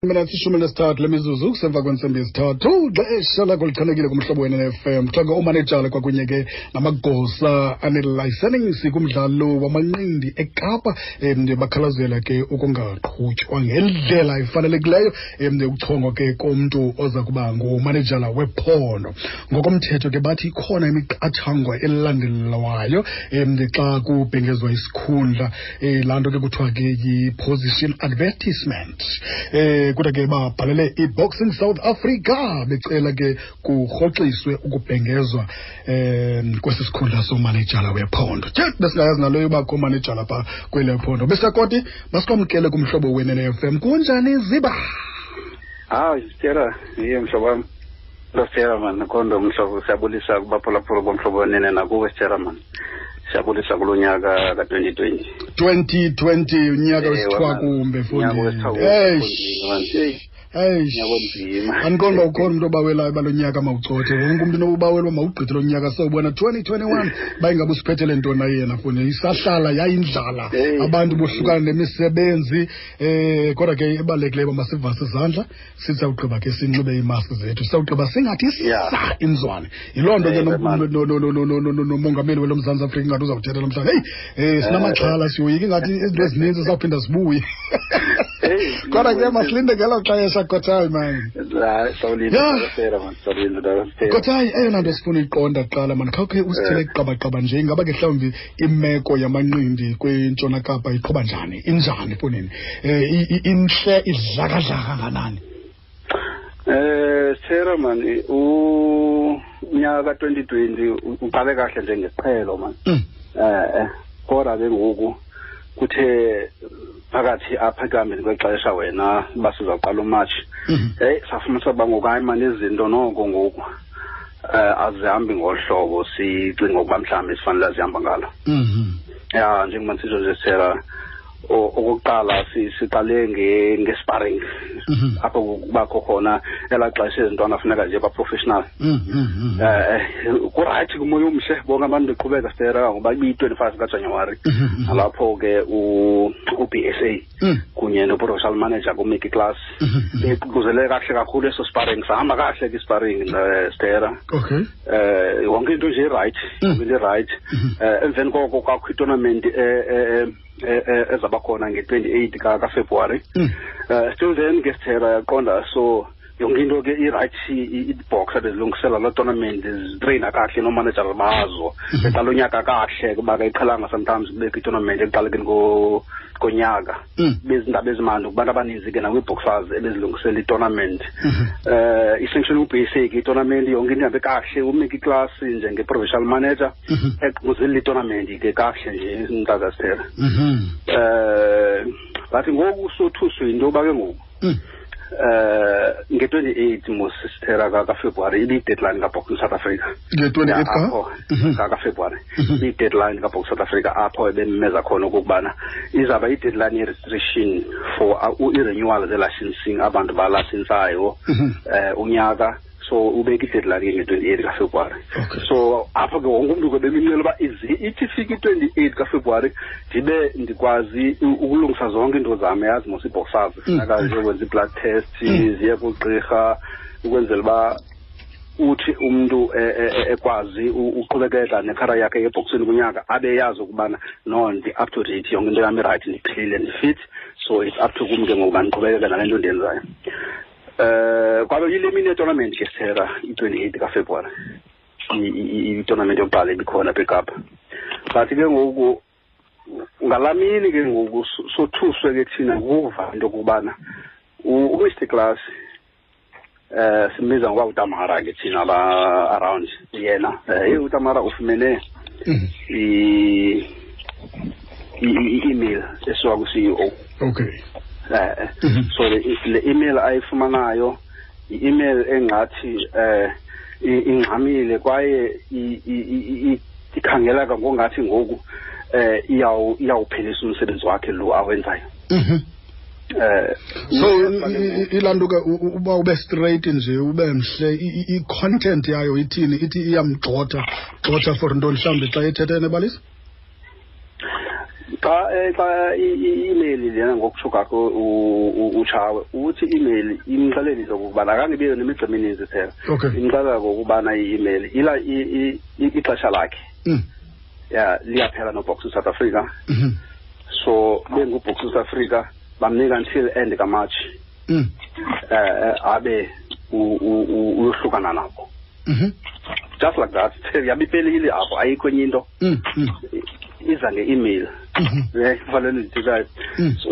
Minutes 13 lemizuzu kusemva kwentsimbi yesithathu, xesha lakho lichanekile kumhlobo wena-FM. Kuthiwa ke oomanejala kwakunye ke namagosa anelayisenisi kumdlalo wamanqindi eKapa bakhalazela ke ukungaqhutywa ngendlela efanelekileyo ukuchongwa ke komntu oza kuba ngumanejala wephondo. Ngokomthetho ke bathi ikhona imiqathango elandelwayo xa kubhengezwa isikhundla, laa nto ke kuthiwa ke yi-position advertisement. Kodwa ke babhalele i-Boxing South Africa becela ke kurhoxiswe ukubhengezwa kwesi sikhundla somanejala wephondo. Tye, besingayazi nalo yoba komanejala pha kwele phondo. Besakoti, masikwamkele kumhlobo wenene FM. Kunjani Ziba? Hayi, Sithera, iye mhlobo wam. Sithera man, khondo mhlobo, siyabulisa kubaphulaphula bomhlobo wenene nakuwe Sithera man. Siyabulisa kulo nyaka ka-2020. 2020, unyaka wesithwakumbe, mfondini. Eish. Eish. Andiqonda uba ukhona umntu obawelayo uba lo nyaka mawucothe. Wonke umntu nobawela uba mawugqithe lo nyaka, sowubona 2021 uba ingabe usiphethele ntoni na yena, mfondini. Isahlala yayindlala, abantu bohlukana nemisebenzi. Kodwa ke ibalulekileyo uba masivase izandla, sisawugqiba ke sinxibe iimaski zethu, sisawugqiba singathi sa inzwane. Yiloo nto ke nomongameli welo Mzantsi Afrika ingathi uzawuthetha namhlanje. Heyi, sinamaxhala, siyoyika ingathi izinto ezininzi zizawuphinda zibuye. Kodwa ke masilinde ngelo xesha, Kotayi man. Kotayi, eyona nto sifuna uyiqonda kuqala man, khawukhe usithele kuqabaqaba nje, ingaba ke mhlawumbi imeko yamanqindi kwiNtshona Kapa iqhuba njani, injani fonini, intle idlakadlaka kanganani? Sithera man, unyaka ka-2020 uqale kahle njengesiqhelo man. Kodwa ke ngoku kuthe phakathi apha ekuhambeni kwexesha wena uba sizawuqala uMatshi, heyi, safumanisa uba ngoku hayi man, izinto noko ngoku azihambi ngolu hlobo sicinga ukuba mhlawumbi sifanele zihamba ngalo. Ya, njengoba ndisitsho nje Sithera, okokuqala siqale nge-sparring. Apho kubakho khona elaa xesha izintwana funeka nje ba-professional. Kurayithi, kumoya omhle, bonke abantu beqhubeka Sithera, ngoba ibiyi-25 kaJanuwari. Nalapho ke u-B S A kunye no-provincial manager kuMickey Klass beququzelele kakuhle kakhulu eso sparring, sahamba kakuhle ke isparring, Sithera. Yonke into nje irayithi, yonke into irayithi. Emveni koko kwakho itournament ezaba khona nge-28 kaFebruwari. Still then ke Sithera yaqonda, so yonke into ke irayithi, iboxer bezilungisela loo tournament, zitreyina kakuhle noomanejara bazo, beqala unyaka kakuhle, kuba ke iqhelanga sometimes kubekho itournament ekuqalekeni konyaka. Bezindaba ezimandi kubantu abaninzi ke nakwiiboxers ebezilungisela itournament. I-sanction ubasic itournament, yonke into ihambe kakuhle, uMickey Klass njenge-provincial manager eququzelela itournament ke kakuhle nje mntakasithera. But ngoku sothuswe yinto yoba ke ngoku nge-28 mos Sithera kaFebruwari ibiyi-deadline kaBoxing South Africa. Nge-28 ka? Apho, kaFebruwari. Ibiyi-deadline kaBoxing South Africa, apho ebememeza khona okokubana izawuba i-deadline ye-registration for i-renewal ze-licensing, abantu balasensayo unyaka. So ubeke i-deadline ke nge-28 kaFebruwari. So apho ke wonke umntu ke bemincela uba ithi ifike i-28 kaFebruwari ndibe ndikwazi ukulungisa zonke iinto zam, yazi mos iboxers funeka ziyokwenza i-blood test, ziye kugqirha ukwenzela uba uthi umntu ekwazi uqhubekeka nekhara yakhe yeboxini kunyaka, abe yazi ukubana no, ndi-up to date, yonke into yam irayithi, ndiphilile, ndifit, so it's up to kum ke ngoku mandiqhubekeke nale nto ndiyenzayo. Kwabe yile mini yetournament ke Sithera, i-28 kaFebruwari, i-tournament yokuqala ibikhona apha eKapa. But ke ngoku ngalaa mini ke ngoku sothuswe ke thina ngokuva into yokubana uMr Klass, simbiza ngoba uTamara ke thina ba around yena, hey, uTamara ufumene i-email esuka ku-CEO. So le email ayifumanayo i-email engathi ingxamile kwaye ikhangeleka ngongathi ngoku iyawuphelisa umsebenzi wakhe lo awenzayo. So ilanto ke uba ube straight nje, ube mhle, i-content yayo ithini? Ithi iyamgxotha, gxotha for ntoni mhlawumbi xa ethethe enebalisa? Xa i-email lena, ngokutsho kwakho uTshawe, uthi i-email imxelelile okokubana akangebiyo nemigca emininzi phela. Imxelela ngokubana i-email ila ixesha lakhe ya liyaphela noBoxing South Africa. So benguBoxing South Africa bamnika until end kaMarch, abe uyohlukana nabo. Just like that, yabe iphelile apho, ayikho enye into. Iza nge-email. Fanele ndithikayo.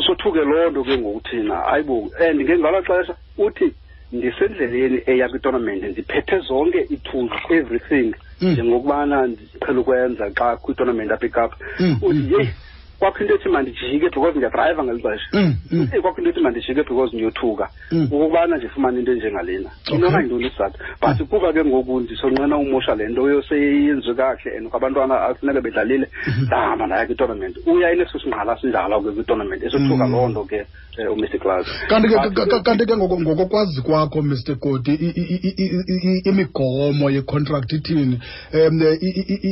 Sothuke loo nto ke ngoku thina, hayibo. And ke ngalo xesha uthi ndisendleleni eya kwitournament, ndiphethe zonke ii-tools, everything, njengokubana ndiqhela ukwenza xa kwitournament apha eKapa. Uthi yeyi, kwakho into ethi mandijike because ndiyadrayiva ngeli xesha. Uthi kwakho into ethi mandijike because ndiyothuka ukubana ndifumane into enjengalena. Inoba yintoni isizathu? But kuba ke ngoku ndisonqena umosha le nto yoseyenziwe kakuhle and kwabantwana afuneka bedlalile, ndahamba ndaya kwitournament. Uya ineso singqala sinjalo ke kwitournament, esothuka loo nto ke uMr Klaas. Kanti ke ngokokwazi kwakho, Mr Koti, imigomo yecontract ithini?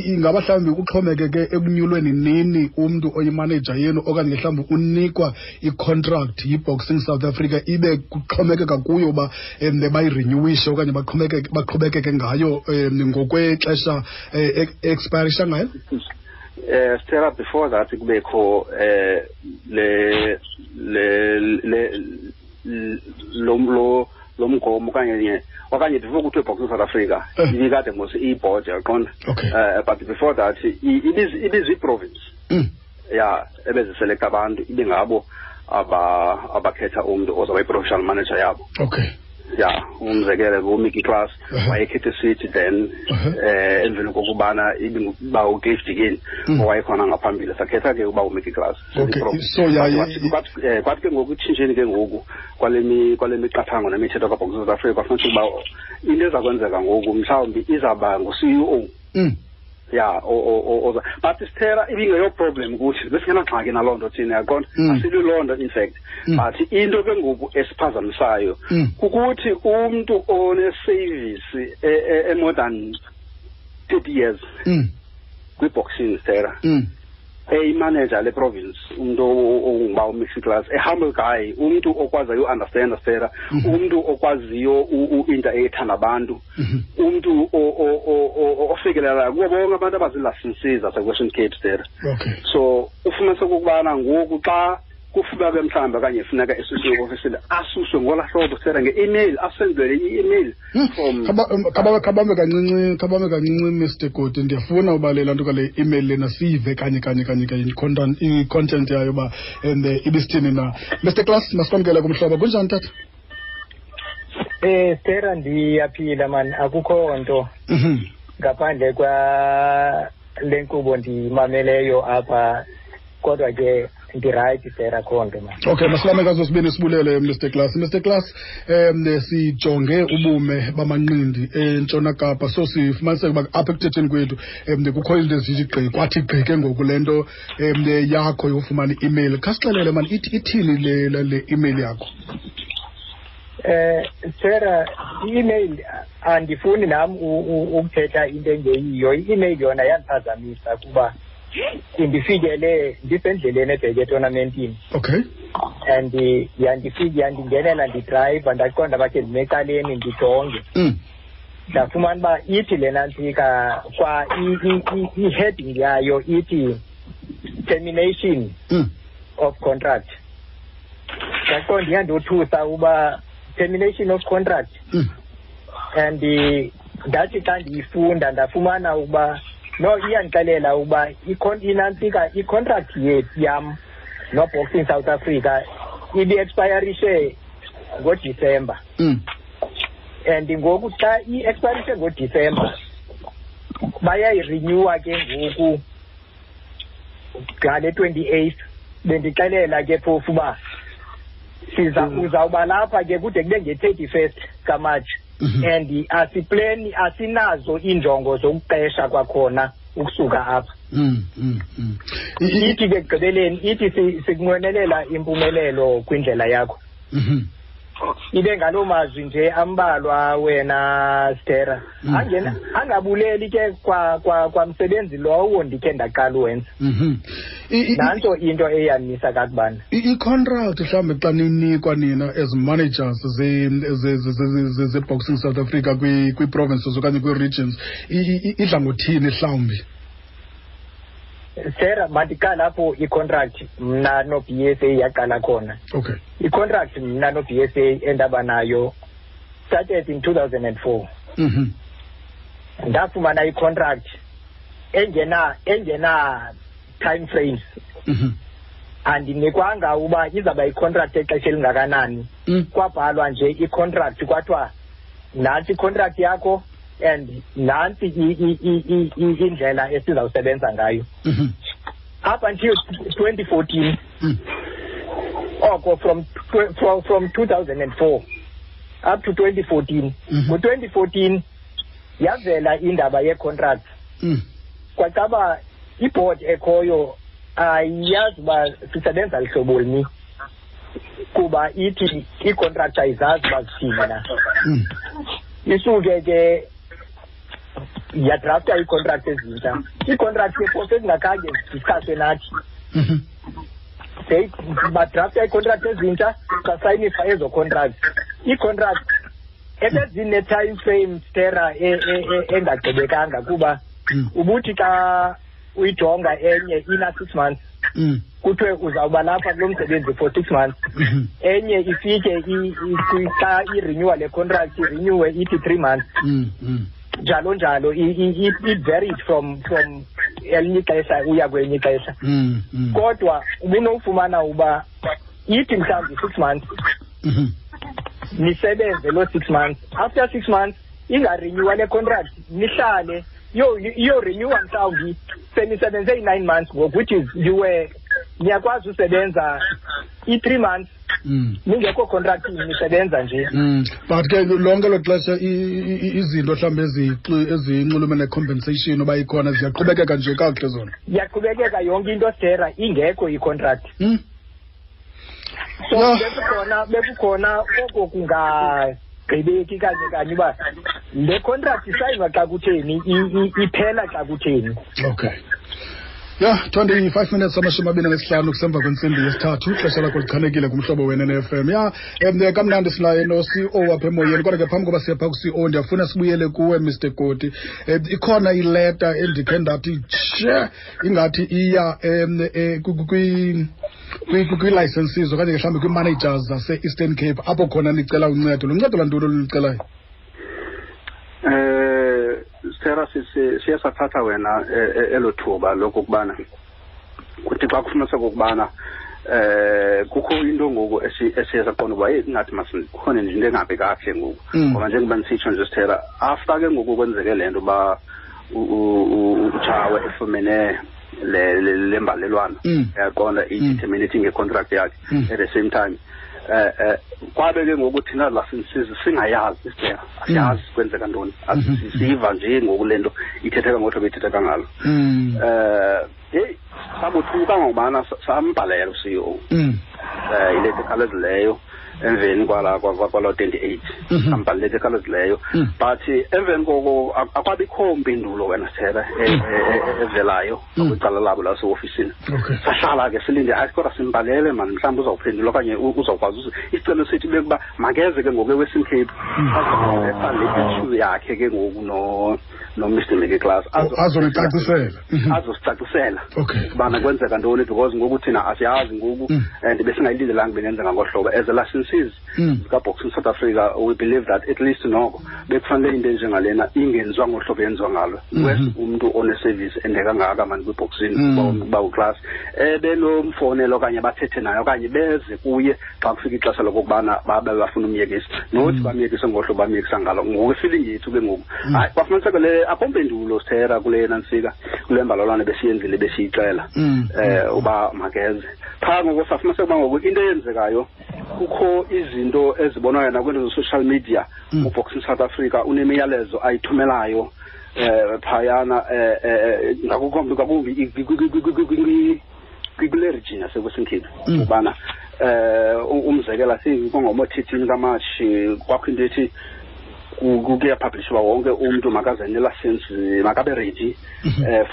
Ingaba mhlawumbi kuxhomekeke ekunyulweni nini umntu oyimanager yenu, okanye mhlawumbi unikwa icontract yiBoxing South Africa, ibe kuxhomekeka kuyo uba bayirenewishe okanye baqhubekeke ngayo ngokwexesha expirisha ngayo? Stella, before that kubekho le le le lo lo lo mgomo okanye before kuthiwe Boxing South Africa, ibikade mos i-board, yaqonda. But before that ibizi-province ya ebeziselekta abantu, ibe ngabo abakhetha umntu ozawuba yi-professional manager yabo. Ya, umzekelo nguMickey Klaas, wayekhethe sithi then emveni kokubana ibinguba uCliff Dickens owayekhona ngaphambili, sakhetha ke uba uMickey Klaas. So Kwathi ke ngoku itshintsheni ke ngoku kwale miqathango nemithetho kaBoxing South Africa, kwafumanisa ukuba into eza kwenzeka ngoku mhlawumbi izawuba ngu-CEO. Ya, oza, but sithera ibingeyo problem kuthi, besingenangxaki naloo nto thina, yaqonda. Asilwi loo nto in fact. But into ke ngoku esiphazamisayo kukuthi umntu one-service e-more than 30 years kwi-boxing, Stera, eyimanager le province, umntu onguba uMixi Klaas, a humble guy, umntu okwaziyo uunderstanda, Stera, umntu okwaziyo u-interact nabantu, umntu ofikelelayo kubo bonke abantu abaziilicensees zaseWestern Cape, Stera. So ufumanise okokubana ngoku xa kufuneka ke mhlawumbi okanye funeka esusiwe ofisini, asuswe ngolaa hlobo, Stera, nge-email, asendwele i-email from Khabambe kancinci, Mr Koti, ndiyafuna uba le nto kale email lena siyive kanye kanye kanye kanye i-content yayo uba and ibisithini na. Mr Klaas, masikwamkele kumhlobo. Kunjani, tata? Stera, ndiyaphila man, akukho nto ngaphandle kwa le nkqubo ndiyimameleyo apha, kodwa ke ndirayithi, Stera, akho nto man. Okay, masilame kazo sibini, sibulele, Mr Klaas. Mr Klaas, sijonge ubume bamanqindi eNtshona Kapa, so sifumaniseke uba apha ekuthetheni kwethu kukho izinto ezithi gqi, kwathi gqi ke ngoku le nto yakho yofumana i-email. Khasixelele mani, ithini le email yakho? Stera, i-email andifuni nam ukuthetha into engeyiyo. I-email yona yandiphazamisa kuba indifikele ndisendleleni ebheke etournamentini. And yandingenela ndidrayiva, ndaqonda bakhe ndime ecaleni ndijonge. Ndafumana uba ithi lena ntsika kwa i-heading yayo ithi termination of contract. Ndaqonda iyandothusa uba termination of contract. And ndathi xa ndiyifunda ndafumana ukuba no, iyandixelela ukuba inantsika i-contract yethu yam noBoxing South Africa ibi-expirishe ngoDisemba. And ngoku xa i-expirishe ngoDisemba, bayayirenewa ke ngoku ngale 28th. Bendixelela ke phofu uba siza uzawuba lapha ke kude kube nge-31st kaMarch. And asipleni, asinazo iinjongo zokuqesha kwakhona ukusuka apha. Ithi ke ekugqibeleni ithi sikunqwenelela impumelelo kwindlela yakho. Ibe ngaloo mazwi nje ambalwa wena Stera. Angabuleli ke kwamsebenzi lowo ndikhe ndaqala uwenza. Nanso into eyanisa kakubana. I-contract mhlawumbi xa ninikwa nina as managers ze-Boxing South Africa kwii-provinces okanye kwii-regions, idla ngothini mhlawumbi? Sarah, mandiqala apho i-contract mna no-BSA yaqala khona. Okay. I-contract mna no-BSA endaba nayo started in 2004. Ndafumana i-contract engena time frames. Andinikwanga uba izawuba i-contract exesha elingakanani. Kwabhalwa nje i-contract kwathiwa nantsi i-contract yakho and nantsi indlela esizawusebenza ngayo. Up until 2014, oko from 2004 up to 2014. Ngo-2014 yavela indaba ye-contract. Kwacaba i-board ekhoyo ayiyazi uba sisebenza lihlobo lini, kuba ithi i-contract ayizazi uba zithini na. Isuke ke yadrafta ii-contract ezintsha. Ii-contract ke phofu ezingakhange zidiskhaswe nathi. Badrafta ii-contract ezintsha, sasayinisa ezo contract. Ii-contract ebezine-time frame Stera engagqibekanga, kuba ubuthi xa uyijonga enye ina 6 months, kuthiwe uzawuba lapha kulo msebenzi for 6 months. Enye ifike xa i-renewa le contract, irenewe ithi 3 months. Njalo njalo it varied from elinye ixesha uya kwelinye ixesha. Kodwa ubunofumana uba ithi mhlawumbi 6 months, nisebenze loo 6 months. After 6 months ingarenewa le contract, nihlale iyorenewa mhlawumbi senisebenze i-9 months ngoku, which is you were niyakwazi usebenza i-3 months ningekho contract, nisebenza nje. But ke lonke lo xesha izinto mhlawumbi ezinxulumene ne-compensation uba ikhona ziyaqhubekeka nje kakuhle zona. Iyaqhubekeka yonke into Stera, ingekho i-contract. So bekukhona oko kungagqibeki kanye kanye uba le contract isayinwa xa kutheni, iphela xa kutheni. Okay. Yeah, 25 minutes 25 kusemva kwentsimbi yesithathu, ixesha lakho lichanekile kumhlobo wena FM. Yeah, kamnandi sinaye no-CEO apha emoyeni, kodwa ke phambi koba siye phaa ku-CEO ndiyafuna sibuyele kuwe Mr Koti. Ikhona ileta endikhe ndathi tshe ingathi iya kwii-licenses okanye mhlawumbi kwii-managers zase-Eastern Cape apho khona nicela uncedo. Luncedo lwantoni olulicelayo? Stera, siye sathatha wena elo thuba lokokubana kuthi xa kufumaniseka okokubana kukho into ngoku esiye saqonda uba hey ingathi masikhona nje into engabi kakuhle ngoku. Ngoba njengoba ndisitsho nje Stera, after ke ngoku kwenzeke le nto uba uTshawe efumene le mbalelwano, uyaqonda, i-terminating nge-contract yakhe at the same time. Kwabe ke ngoku thina licenses singayazi Stera, asiyazi kwenzeka ntoni, siva nje ngoku le nto ithetheka ngohlobo ithetheka ngalo. Heyi sabothuka ngokubana sambhalela u-CEO ileta ekhawulezileyo emveni kwala 28, sambhalela ileta ekhawulezileyo. But emveni koko akwabikho mpindulo wena Stera evelayo kwicala labo laseofisini. Sahlala ke silinde, hayi kodwa simbhalele mani, mhlawumbi uzawuphendula okanye uzawukwazi. Isicelo sethu bekuba makeze ke ngoku eWestern Cape azoletha le issue yakhe ke ngoku no-Mr Mickey Klaas azonicacisela, azosicacisela ubana kwenzeka ntoni, because ngoku thina asiyazi ngoku and besingayilindelanga bengenzeka ngohlobo. As a licensees zikaBoxing South Africa, we believe that at least noko bekufanele into enjengalena ingenziwa ngohlobo yenziwa ngalo. Wes umntu one-service ende kangaka mani kwiboxing uba uClass ebenomfonela okanye bathethe naye okanye beze kuye xa kufika ixesha lokokubana babe bafuna umyekisa, nothi bamyekise ngohlobo bamyekisa ngalo. Ngoku ifeeling yethu ke ngoku hayi kwafumaniseka le akho mpendulo Stera kule nantsika kule mbalelwano besiyenzile besiyixela uba makeze. Phaa ngoku safumaniseka uba ngoku into eyenzekayo kukho izinto ezibonwayo nakwiinto ze-social media. UBoxing South Africa unemiyalezo ayithumelayo phayana ngakumbi kule region yaseWestern Cape ubana Umzekelo singomo-13 kaMatshi kwakho into ethi kuyapublishwa wonke umntu makaze nelicense, makabe ready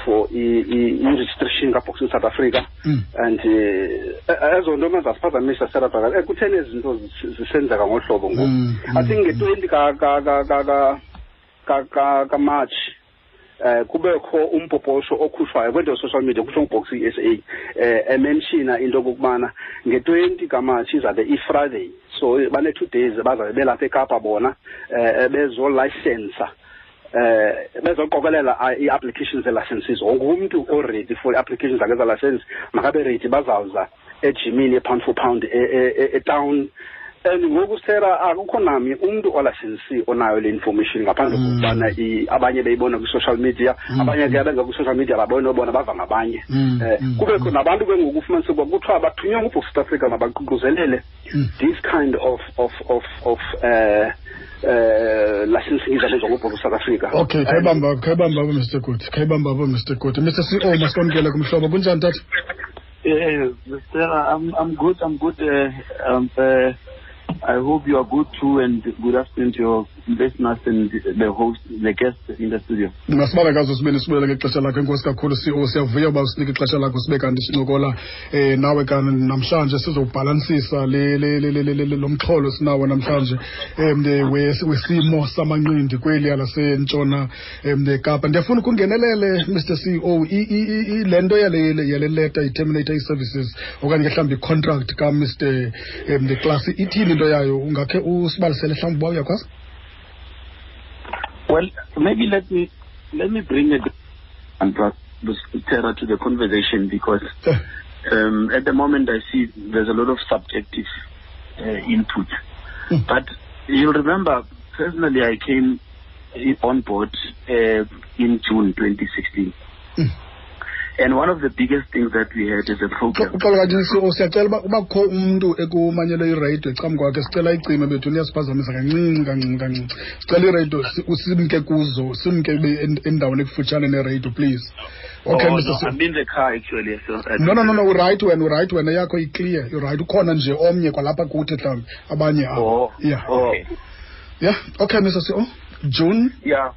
for i-registration kaBoxing South Africa. And ezo nto mazasiphazamisa serabhaka kutheni ezi zinto zisenzeka ngohlobo ngoku. I think nge-20 kaMarch kubekho umpoposho okhutshwayo kwento social media kuthiwa nguBoxing SA, emenshina into okokubana nge-20 kaMatshi izabe i-Friday, so bane-2 days bazabe belapha eKapa bona bezolayisensa, bezoqokelela ii-applications ze-licenses. Wonke umntu o-ready for i-applications zakhe za-license makabe ready, bazawuza ejimini ye-Pound for Pound etown. And ngoku sera akukho namnye umntu olayisensi onayo le information ngaphandle kokubana abanye beyibona kwi-social media, abanye ke abenza kwi-social media babone bona bava ngabanye. Kubekho nabantu ke ngoku ufumanise ukuba kuthiwa bathunywe nguBox South Africa mabaququzelele this kind of licensing izabenza nguBox South Africa. Okay, khayibamba, khayibamba apho, Mr Good, khayibamba apho, Mr Good. Mr CEO, masikwamkele kumhlobo. Kunjani, tata? Yeah, Mr. I'm good. I'm good. I hope you are good too, and good afternoon to your listeners and the host, the guests in the studio. Masibabe kazo sibini sibulele ngexesha lakho. Enkosi kakhulu, CEO. Siyavuya uba usinike ixesha lakho sibe kanti sincokola nawe kanti namhlanje sizowubhalansisa le le le le le lo mxholo sinawo namhlanje wesimo samanqindi kweliya lasentshona Kapa. Ndiyafuna ukungenelele, Mr CEO, le nto yale leta i-terminate ii-services okanye ke mhlawumbi i-contract kaMr Klass, ithini into yayo? Ungakhe usibalisele mhlawumbi uba uyakwazi? Well, maybe let me bring it and Terra to the conversation because at the moment I see there's a lot of subjective input. But you'll remember, personally, I came on board in June 2016. And one of the biggest things that we had as a program. Uxolo kanti, CEO, siyacela uba kukho umntu ekumanyelwe iradio ecam kwakhe, sicela icime bethu, niyasiphazamisa kancinci kancinci kancinci. Sicela iradio simke kuzo, simke endaweni ekufutshane neradio, please. Okay. Oh, Mr. no, I'm in the car actually. So No, uright wena, uright wena, yakho i-clear, uright. Ukhona nje omnye kwalapha kuthi mhlawumbi abanye abo. Oh, Yeah. okay. Yeah, okay, Mr CEO, June. Yeah.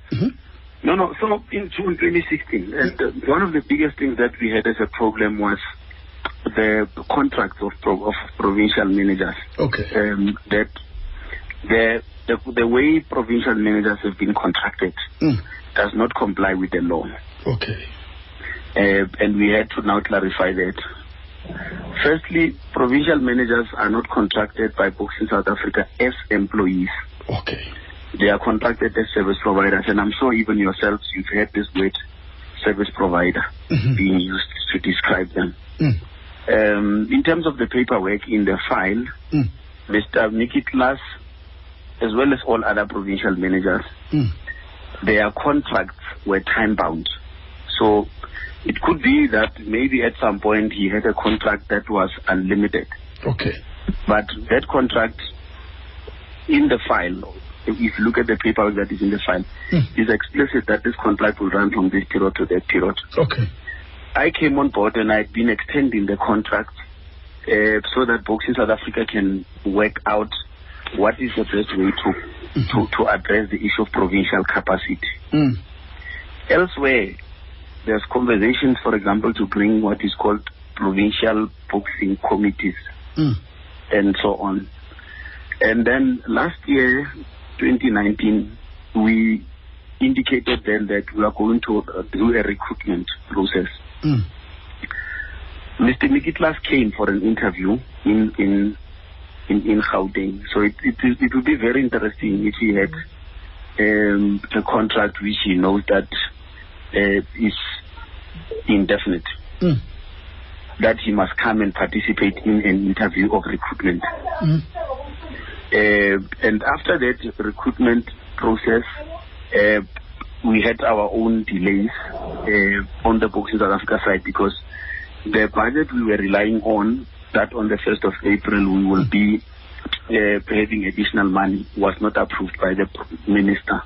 No. So in June 2016, and one of the biggest things that we had as a problem was the contracts of provincial managers. That the way provincial managers have been contracted does not comply with the law. And we had to now clarify that. Firstly, provincial managers are not contracted by Boxing South Africa as employees. They are contracted as service providers, and I'm sure even yourselves, you've heard this word, service provider, being used to describe them. In terms of the paperwork in the file, Mr. Nicky Klass, as well as all other provincial managers, their contracts were time-bound. So it could be that maybe at some point he had a contract that was unlimited. But that contract in the file, if you look at the paperwork that is in the file, is explicit that this contract will run from this period to that period. I came on board and I've been extending the contract so that Boxing South Africa can work out what is the best way to address the issue of provincial capacity. Elsewhere, there's conversations, for example, to bring what is called provincial boxing committees and so on. And then last year, 2019, we indicated then that we are going to do a recruitment process. Mr. Nicky Klass came for an interview in Gauteng. So it would be very interesting if he had a contract which he knows that is indefinite, that he must come and participate in an interview of recruitment. And after that recruitment process, we had our own delays on the Boxing South Africa side because the budget we were relying on, that on the 1st of April we will be having additional money, was not approved by the minister.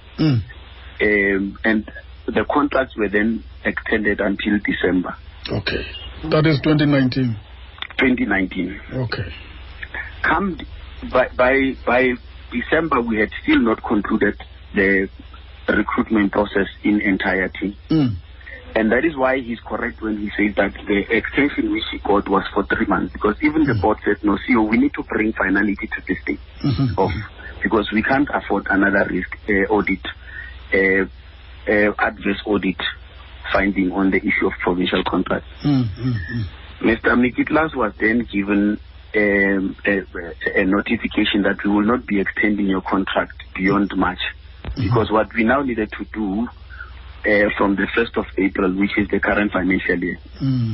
And the contracts were then extended until December. Okay. That is 2019. 2019. Okay. Come by December, we had still not concluded the recruitment process in entirety. And that is why he's correct when he says that the extension which he got was for 3 months, because even the board said, no, CEO, we need to bring finality to this thing, because we can't afford another risk audit, adverse audit finding on the issue of provincial contracts. Mr. Micki Klaas was then given a notification that we will not be extending your contract beyond March, because what we now needed to do from the 1st of April, which is the current financial year,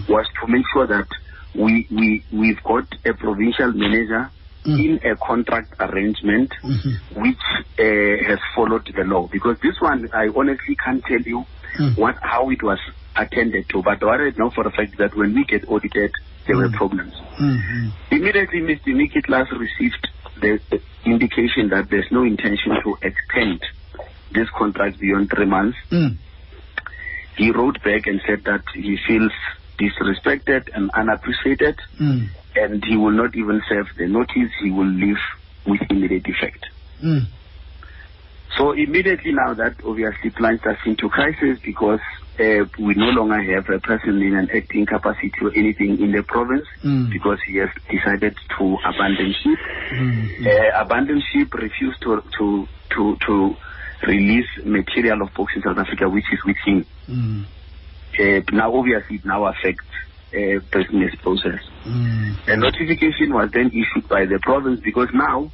was to make sure that we've got a provincial manager in a contract arrangement which has followed the law. Because this one, I honestly can't tell you how it was attended to, but what I know for a fact that when we get audited, there were problems. Immediately, Mr. Micki Klaas received the indication that there's no intention to extend this contract beyond 3 months. He wrote back and said that he feels disrespected and unappreciated, and he will not even serve the notice. He will leave with immediate effect. So immediately now that obviously plunged us into crisis, because we no longer have a person in an acting capacity or anything in the province, because he has decided to abandon ship. Abandon ship, refused to release material of Boxing South Africa, which is with him. Now, obviously, it now affects business process. A notification was then issued by the province, because now,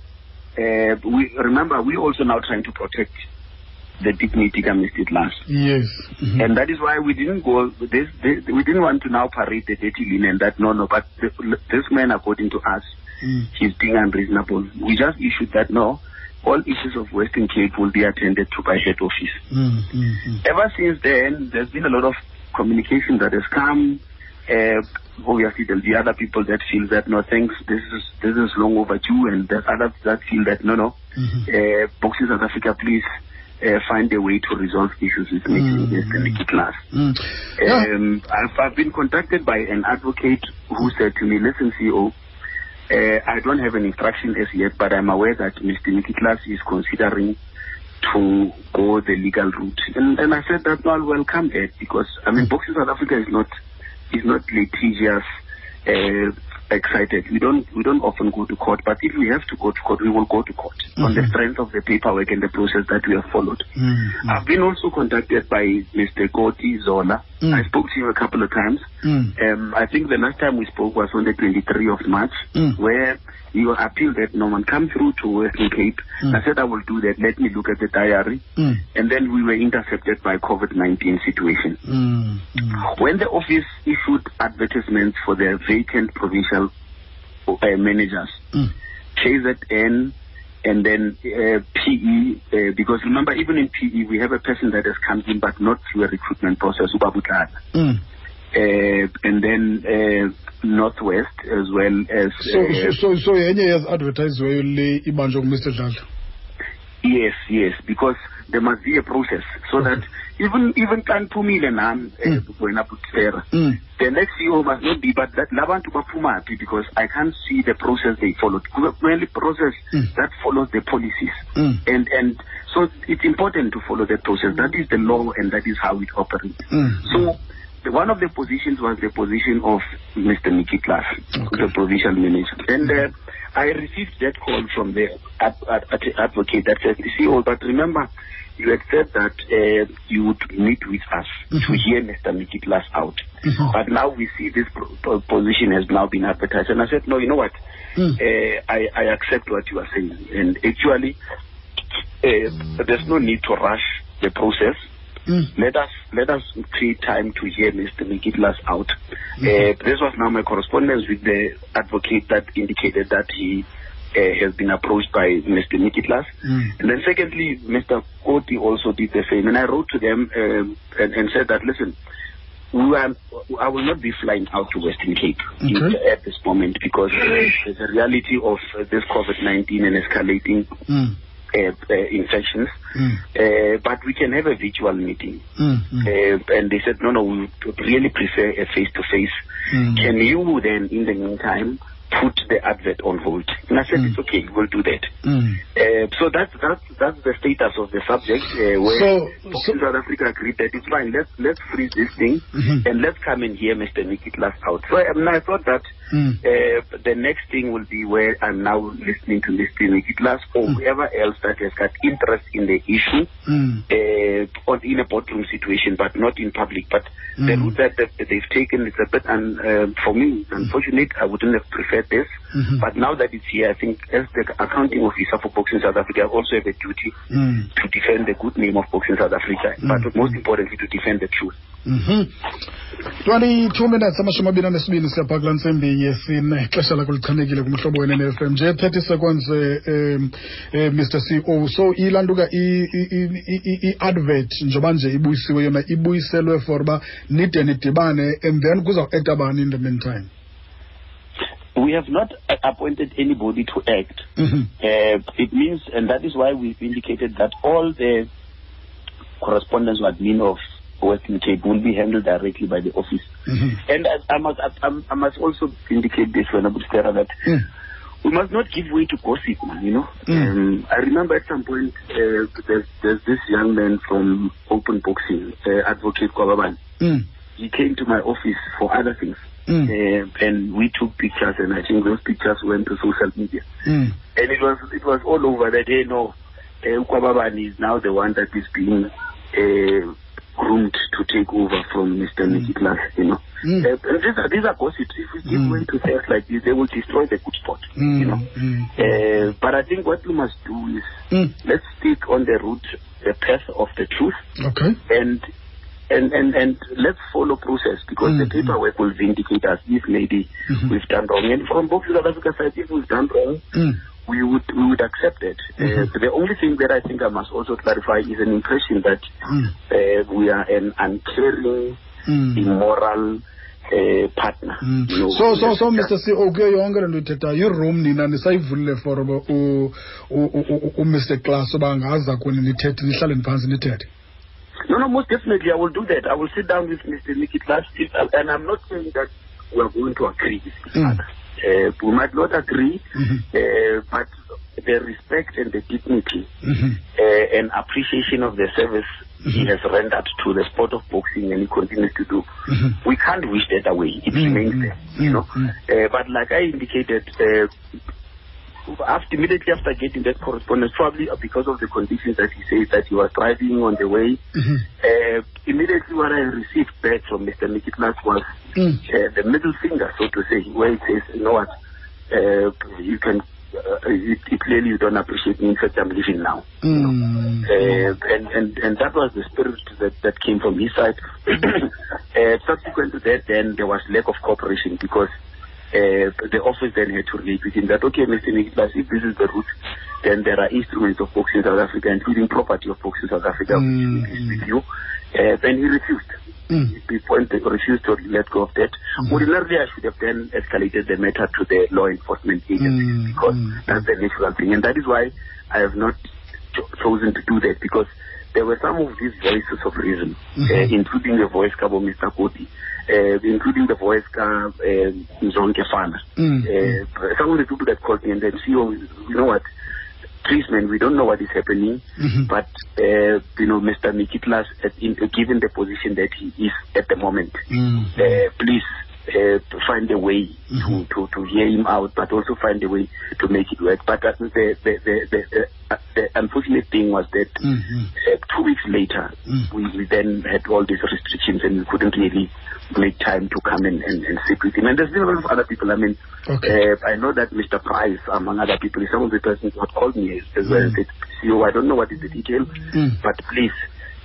we remember, we also now trying to protect the dignity of Mr. Klaas. Yes. And that is why we didn't go, we didn't want to now parade the dirty linen that no, but this man, according to us, he's being unreasonable. We just issued that no, all issues of Western Cape will be attended to by head office. Ever since then, there's been a lot of communication that has come. Obviously, there'll be other people that feel that no, thanks, this is long overdue, and there's others that feel that no, Boxing South Africa, please find a way to resolve issues with Mr. Micki Klaas. I've been contacted by an advocate who said to me, listen, CEO, I don't have an instruction as yet, but I'm aware that Mr. Micki Klaas is considering to go the legal route. And I said that, no, I'll welcome that, because, I mean, Boxing South Africa is not litigious, excited. We don't often go to court, but if we have to go to court, we will go to court on the strength of the paperwork and the process that we have followed. I've been also contacted by Mr. Koti Zola. I spoke to him a couple of times. I think the last time we spoke was on the 23rd of March, where he appealed that no one come through to Western Cape. I said I will do that. Let me look at the diary. And then we were intercepted by COVID-19 situation. When the office issued advertisements for their vacant provincial managers, KZN and then PE, because remember, even in PE, we have a person that has come in, but not through a recruitment process, Ubabutlana. And then Northwest as well as... So any has advertised Mr. Dladla? Yes, because there must be a process so that even Kanpumile nam the next CEO must not be, but that labantu baphumaphi, because I can't see the process they followed. Mainly process that follows the policies, and so it's important to follow the process. That is the law, and that is how it operates. So one of the positions was the position of Mr. Micki Klaas, the provincial manager. And I received that call from the advocate that said, CEO, but remember, you had said that you would meet with us to hear Mr. Micki Klaas out. But now we see this position has now been advertised. And I said, no, you know what? I accept what you are saying. And actually, there's no need to rush the process. Let us create time to hear Mr. Micki Klaas out. This was now my correspondence with the advocate that indicated that he has been approached by Mr. Micki Klaas. And then secondly, Mr. Koti also did the same. And I wrote to them and said that, listen, I will not be flying out to Western Cape at this moment, because there's a reality of this COVID-19 and escalating infections, but we can have a virtual meeting. And they said, no, we really prefer a face-to-face. Can you then, in the meantime, put the advert on hold. And I said, it's okay, we'll do that. So that's the status of the subject, where Boxing South Africa agreed that it's fine, let's freeze this thing and let's come and hear Mr. Nicky Klaas out. So I thought that the next thing will be where I'm now listening to Mr. Nicky Klaas or whoever else that has got interest in the issue or in a boardroom situation, but not in public. But the route that they've taken is a bit, for me, it's unfortunate. I wouldn't have preferred this. But now that it's here, I think as the accounting officer for Boxing South Africa, I also have a duty to defend the good name of Boxing South Africa, but most importantly, to defend the truth. 22 minutes, 22 siyapha kulaa ntsimbi yesine, ixesha lakho lichanekile kumhlobo wene FM. Nje 30 seconds, Mr. CEO. So ilantuka i-advert njengoba nje ibuyisiwe yona, ibuyiselwe for uba nide nidibane, and then kuzawu-acta bani in the meantime? We have not appointed anybody to act. It means, and that is why we've indicated that all the correspondence with admin of Western Cape will be handled directly by the office. And I must also indicate this, Stera, that we must not give way to gossip, man, you know. I remember at some point there's this young man from Open Boxing, Advocate Kwababan. He came to my office for other things. And we took pictures, and I think those pictures went to social media. And it was all over that, hey, no, Kwababan is now the one that is being groomed to take over from Mr. Nicky Klaas, you know. And these are gossips. If we give way to things like this, they will destroy the good spot, you know. But I think what we must do is let's stick on the route, the path of the truth. Okay. And let's follow process, because the paperwork will vindicate us if maybe we've done wrong. And from Boxing South Africa side, if we've done wrong, we would accept it. The only thing that I think I must also clarify is an impression that we are an uncaring, immoral partner. You know, so Mr. CEO, kuyo yonke le nto ithethayo, i-room nina nisayivulile for uMr. Klaas uba angaza kuni nithethe, nihlaleni phantsi nithethe? No, most definitely I will do that. I will sit down with Mr. Nicky Klaas, and I'm not saying that we are going to agree with each other. We might not agree, but the respect and the dignity and appreciation of the service he has rendered to the sport of boxing, and he continues to do, we can't wish that away. It remains there, you know. But like I indicated, immediately after getting that correspondence, probably because of the conditions that he says that he was driving on the way, immediately what I received back from Mr. Nicky Klaas was the middle finger, so to say, where he says, you know what, you can, clearly you don't appreciate me, in fact I'm leaving now. You know? And that was the spirit that came from his side. Subsequent to that, then there was lack of cooperation, because the office then had to relate with him that, okay, Mr. Nicky Klaas, if this is the route, then there are instruments of Boxing South Africa, including property of Boxing South Africa, which is with you. Then he refused. He refused to let go of that. Ordinarily, I should have then escalated the matter to the law enforcement agencies, because that's the natural thing. And that is why I have not chosen to do that, because there were some of these voices of reason, including the voice of Mr. Koti, including the voice of Mzonke Fana. Some of the people that called me and then see, oh, you know what, please, man, we don't know what is happening, but, you know, Mr. Nicky Klaas, given the position that he is at the moment, please find a way to hear him out, but also find a way to make it work. But the unfortunate thing was that 2 weeks later, we then had all these restrictions, and we couldn't really make time to come and sit with him. And there's been a lot of other people. I mean, I know that Mr. Price, among other people, is some of the persons who had called me as well and said, CEO, I don't know what is the detail, but please,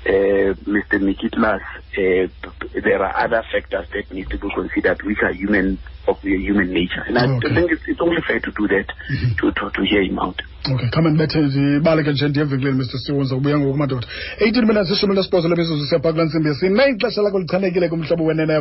Mr. Nicky Klaas, there are other factors that need to be considered, which are human, of the human nature. And I think it's only fair to do that, to hear him out. Okay, come and bethe ndibaleke nje ndiye evenkileni, Mr. CEO, ndizawubuya ngoku madoda. 18 minutes, 18 lemizuzu siyapha kulaa ntsimbi yesine. Ixesha lakho lichanekile kumhlobo wenene.